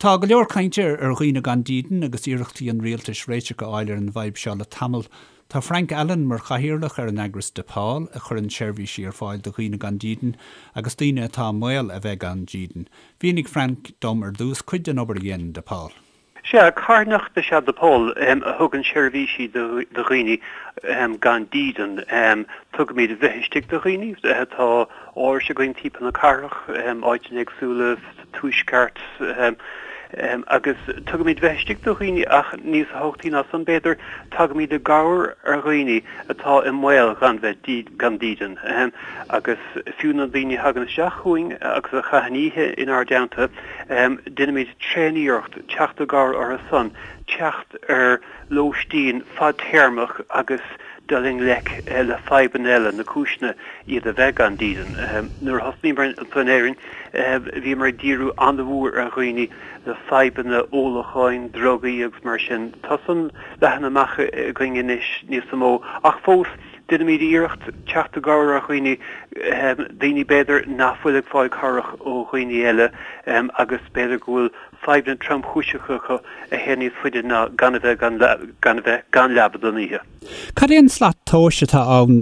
Tá go leor cainte ar dhaoine gan dídean agus iarrachtaí an rialtais réiteach a fháil ar an bhfadhb seo le tamall. Tá Frank Allen mar chathaoirleach ar an eagras Depaul a chuireann seirbhísí ar fáil do dhaoine gan dídean agus daoine atá i mbaol a bheith gan dídean. Mhínigh Frank dom ar dtús cuid den obair a dhéanann Depaul. Sea, carthanacht is ea Depaul a thugann seirbhísí do dhaoine gan dídean. Tugaimid bheith istigh do dhaoine. Tá árais againn timpeall na cathrach, áiteanna éagsúla sa tuaisceart, agus tugaimid bheith istigh do dhaoine ach níos tábhachtaí ná san b'fhéidir, tagaimid i gcabhair ar dhaoine atá i mbaol gan bheith gan dídean. Agus fiú na daoine a thagann isteach chugainn agus a chaitheann oíche inár dteannta, Déanaimid tréaniarracht teacht i gcabhair orthu san, teacht ar lóistín fadtéarmach agus dul i ngleic le fadhbanna eile, na cúiseanna iad a bheith gan dídean. Nuair a thosnaíomar anseo in Éirinn, bhíomar ag díriú an-mhór ar dhaoine le fadhbanna ólacháin, drugaí agus mar sin. Tá san leathan amach againn anois níos mó, ach fós, Déanaimid iarracht teacht i gcabhair ar dhaoine, daoine b'fhéidir nach bhfuil ag fáil cabhrach ó dhaoine eile agus b'fhéidir go bhfuil fadhbanna tromchúiseacha acu a théann níos faide ná gan a bheith gan gan a bheith gan leaba don oíche. Cad é an slat tomhais atá ann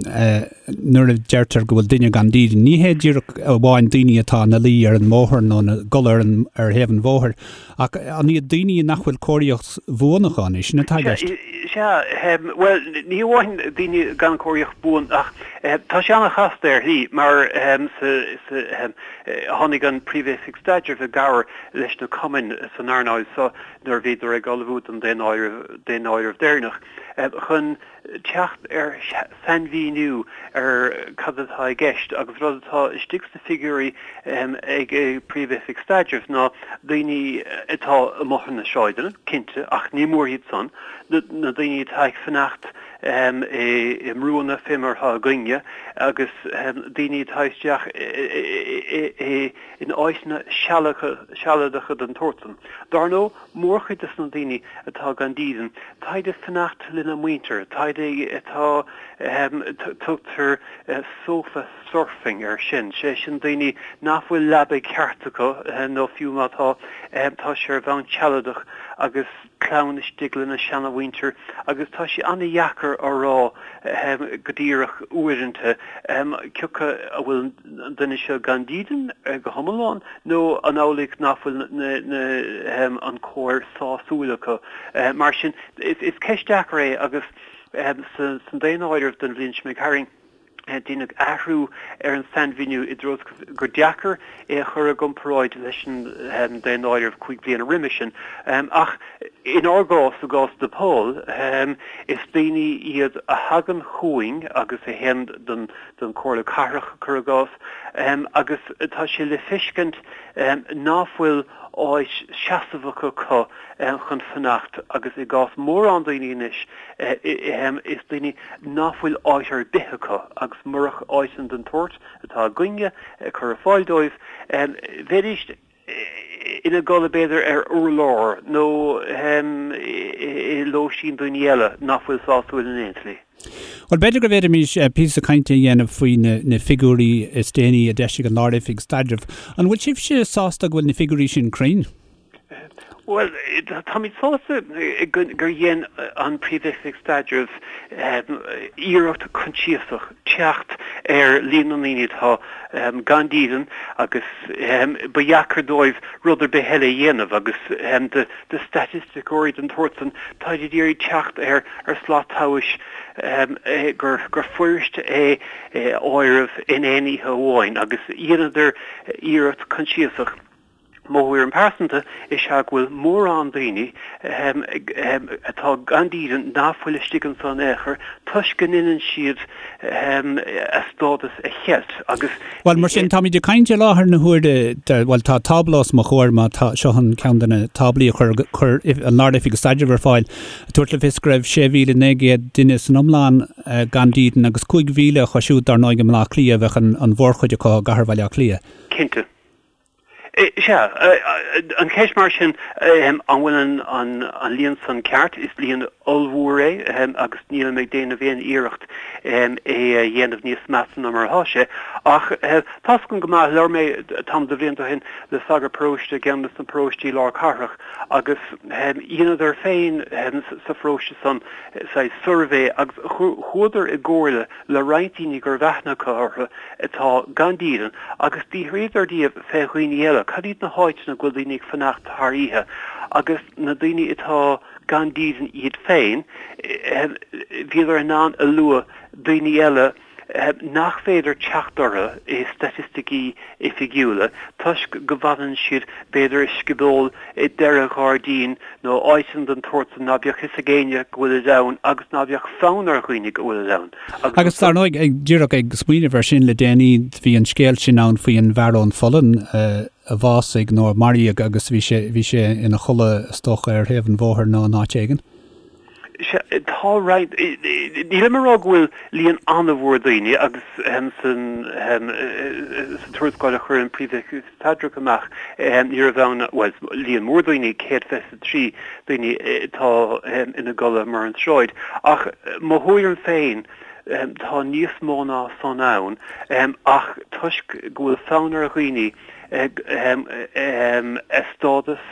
nuair a deirtear go bhfuil duine gan dídean? Ní hé díreach amháin daoine atá ina luí ar an mbóthar nó ina gcodladh ar an ar thaobh an bhóthair Ach an iad daoine nach bhfuil cóiríocht bhuan acu, an é sin atá i gceist? Sea, bhuel, ní hamháin daoine gan cóiríocht buan ach tá sé an-chasta ar shlí mar tháinig an Príomh-Oifig Staidrimh i gcabhair leis na cumainn san earnáil seo nuair a bhíodar ag ullmhú don daonáireamh deireanach chun teacht ar sainmhíniú ar cad atá i gceist agus rud atá istigh sna figiúirí ag Príomh-Oifig Staidrimh ná daoine atá amuigh ar na sráideanna, cinnte, ach ní mór iad san, na daoine atá ag fanacht i mbrúanna fé mar atá againne agus daoine atá isteach in áiteanna sealadacha den tsórt san. Dar ndóigh, Mórchuid de na daoine atá gan dídean, táid ag fanacht lena muintir, táid atá, tugtar sofa surfing air sin, sé sin daoine nach bhfuil leaba ceart acu nó fiú má tá, tá sé ar bhonn sealadach agus clann istigh lena seanamhuintir agus tá sé an-dheacair a rá go díreach uaireanta cé acu an bhfuil an duine seo gan dídean go hiomlán nó an amhlaidh nach bhfuil an cóir sásúil acu. Mar sin, is ceist deacair é agus san daonáireamh don bhliain seo imigh tharainn, deineadh athrú ar an sainmhíniú i dtreo gur deacair é a chur i gcomparáid leis an daonáireamh 5 bliana roimhe sin. Ach inár gcás, i gcás DePaul, is daoine iad a thagann chugainn agus a théann don don Chomhairle Cathrach, cuir i gcás, agus tá sé le feiscint ná fuil áit seasamhach acu chun fanacht agus i gcás mórán daoine anois is daoine ná fuil áit ar bith acu agus murach áiteanna den tsórt atá againne ag cur ar fáil dóibh bheidís ina gcodladh b'fhéidir ar urlár nó i lóistín daoine eile nach bhfuil sásúil in aon tslí. Bhuel, b'fhéidir go bhféadfaimis píosa cainte a dhéanamh faoi na figiúirí is déanaí a d'eisigh an Lár-Oifig Staidrimh. An bhfuil sibhse sásta go bhfuil na figiúirí sin cruinn? Bhuel, táimid sásta gur dhein an Príomh-Oifig Staidrimh iarracht coinsiasach teacht ar líon na ndaoine atá gan dídean agus ba dheacair dóibh rud ar bith eile a dhéanamh agus do staitisticeoirí den tsórt san, táid ag iarraidh teacht ar slat tomhais gur fuirist é a áireamh in aon oíche amháin agus dheineadar iarracht coinsiasach. Mo thuairim pearsanta is ea go bhfuil mórán daoine atá gan dídean nach bhfuil istigh anso in aon chor toisc go ndeineann siad a stádas a cheilt agus. Bhuel, mar sin, táimid ag caint i láthair na huaire, bhuel, tá tábla os mo chomhair, má tá, seo an ceann de na táblaí a chuir, chuir an Lár-Oifig Staidrimh ar fáil, ag tabhairt le fios go raibh 6,900 duine san iomlán gan dídean agus 5,000 acu siúd, dar ndóigh, i mBaile Átha Cliath, bheadh an mhórchuid acu i gcathair Bhaile Átha Cliath. Cinnte. Sea, an cheist mar sin, an bhfuil an líon san ceart? Is líon ollmhór é agus nílim ag déanamh aon iarracht é a dhéanamh níos measa ná mar atá sé. Ach tá's agam go maith, labhair mé tamall de bhlianta ó shin le sagart paróiste i gceann de na paróistí lár cathrach agus dheineadar féin sa pharóiste san saghas suirbhé agus chuadar i gcomhairle le roinnt daoine go raibh aithne acu orthu atá gan dídean agus d'fhiafraíodar díobh fé dhaoine eile, cad iad na háiteanna go bhfuil daoine ag fanacht thar oíche agus na daoine atá gan dídean iad féin, bhíodar in ann a lua daoine eile nach féidir teacht orthu i staitisticí oifigiúla toisc go bhfanann siad b'fhéidir i scioból i deireadh ghairdín nó áiteanna den tsórt san ná beadh fhios ag éinne go bhfuilid ann agus ná beadh fonn ar dhaoine go bhfuilid ann. Agus dar ndóigh, díreach ag smaoineamh air sin le déanaí, bhí an scéal sin ann faoi an bhfear ón Pholainn a bhásaigh nó a maraíodh agus bhí sé, bhí sé ina chodladh is dócha ar thaobh an bhóthair nó in áit éigin. Sea, tá roinnt, nílim ag rá go bhfuil líon an-mhór daoine agus san tuarascáil a chuir an Príomh-Oifigeach Staidrimh amach ní raibh ann, bhuel, líon mór daoine, 123 daoine atá ina gcodladh ar an tsráid. Ach mo thuairim féin, tá níos mó ná san ann ach toisc go bhfuil fonn ar dhaoine a stádas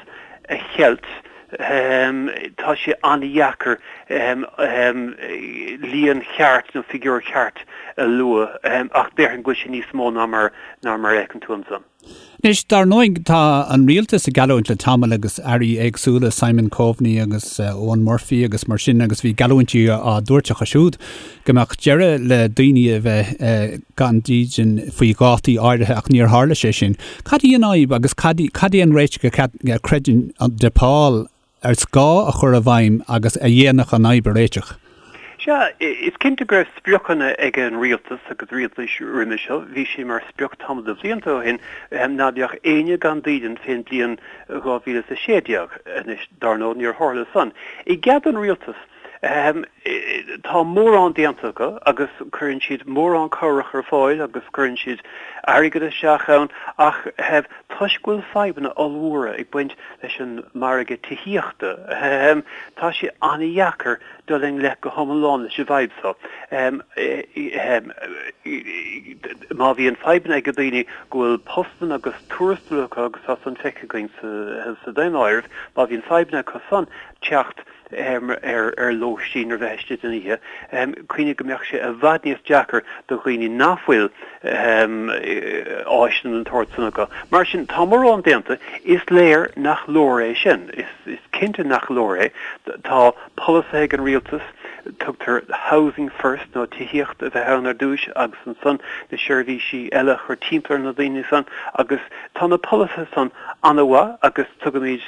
a cheilt, Tá sé an-dheacair líon cheart nó figiúr ceart a lua ach déarfainn go bhfuil sé níos mó ná mar a fheiceann tú ansan. Anois, dar ndóigh, tá an rialtas ag geallúint le tamall agus airí éagsúla, Simon Coveney agus Eoghan Murphy agus mar sin agus bhí geallúintí á dtabhairt acu siúd go mbeadh deireadh le daoine a bheith gan dídean faoi dhátaí áirithe ach níor tharla sé sin. Cad í an fhadhb agus cad cad é an réiteach a chreideann DePaul is gá a chur i bhfeidhm agus a dhéanfadh an fhadhb a réiteach? Sea, is cinnte go raibh spriocanna ag an rialtas agus rialtais roimhe seo. Bhí sé mar sprioc tamall de bhlianta ó shin ná beadh éinne gan dídean fén bliain 2016. Anois, dar ndóigh, níor tharla san. I gcead don rialtas, Tá mórán déanta acu agus cuireann siad mórán cabhrach ar fáil agus cuireann siad airgead isteach ann ach toisc go bhfuil fadhbanna ollmhóra ag baint leis an margadh tithíochta, tá sé an-dheacair dul i ngleic go hiomlán leis an bhfadhb seo. Má bhíonn fadhbanna ag daoine go bhfuil postanna agus tuarastail acu agus tá san feicthe againn sa daonáireamh, má bhíonn fadhbanna acu san teacht ar lóistín ar bheith istigh den oíche, cuimhnigh go mbeadh sé i bhfad níos deacair do dhaoine nach bhfuil áiseanna den tsórt san acu. Mar sin, tá mórán déanta. Is léir nach leor é sin. Is cinnte nach leor é. Tá polasaithe ag an rialtas, tugtar housing first nó tithíocht a bheith ann ar dtúis agus ansan na seirbhísí eile a chur timpeall ar na daoine san agus tá na polasaithe san an-mhaith agus tugaimid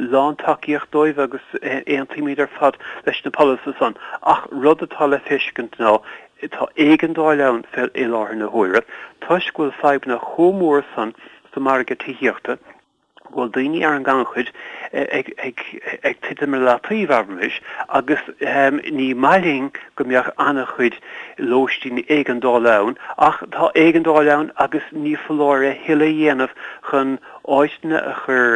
lán-tacaíocht dóibh agus aontaímid ar fad leis na polasaithe san. Ach rud atá le feiscint ná tá éigeandáil ann fé i láthair na huaire toisc go bhfuil fadhbanna chomh mór san sa margadh tithíochta, go bhfuil daoine ar an ngannchuid ag titim ar leataobh, abraimis, agus ní maith linn go mbeadh an-chuid lóistíní éigeandála ann, ach tá éigeandáil ann agus ní foláir a thuilleadh a dhéanamh chun áiteanna a chur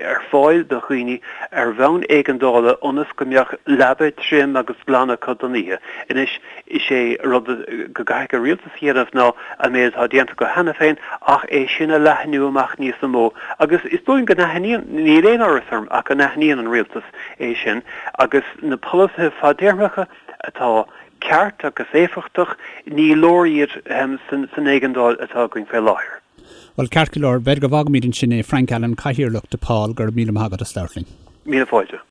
ar fáil do dhaoine ar bhonn éigeandála ionas go mbeadh leaba tirim agus glan acu don oíche. Anois, is é rud go gcaithfidh an rialtas a dhéanamh ná an méid atá déanta acu cheana féin ach é sin a leathnú amach níos mó agus is dóigh go n-aithníonn, níl aon amhras orm ach go n-aithníonn an rialtas é sin agus na polasaithe fadtéarmacha atá ceart agus éifeachtach, ní leor iad san éigeandáil atá againn fé láthair. Bhuel, ceart go leor, b'fhéidir go bhfágfaimid ansin é. Frank Allen, Cathaoirleach DePaul, go raibh míle maith agat as labhairt linn. Míle fáilte.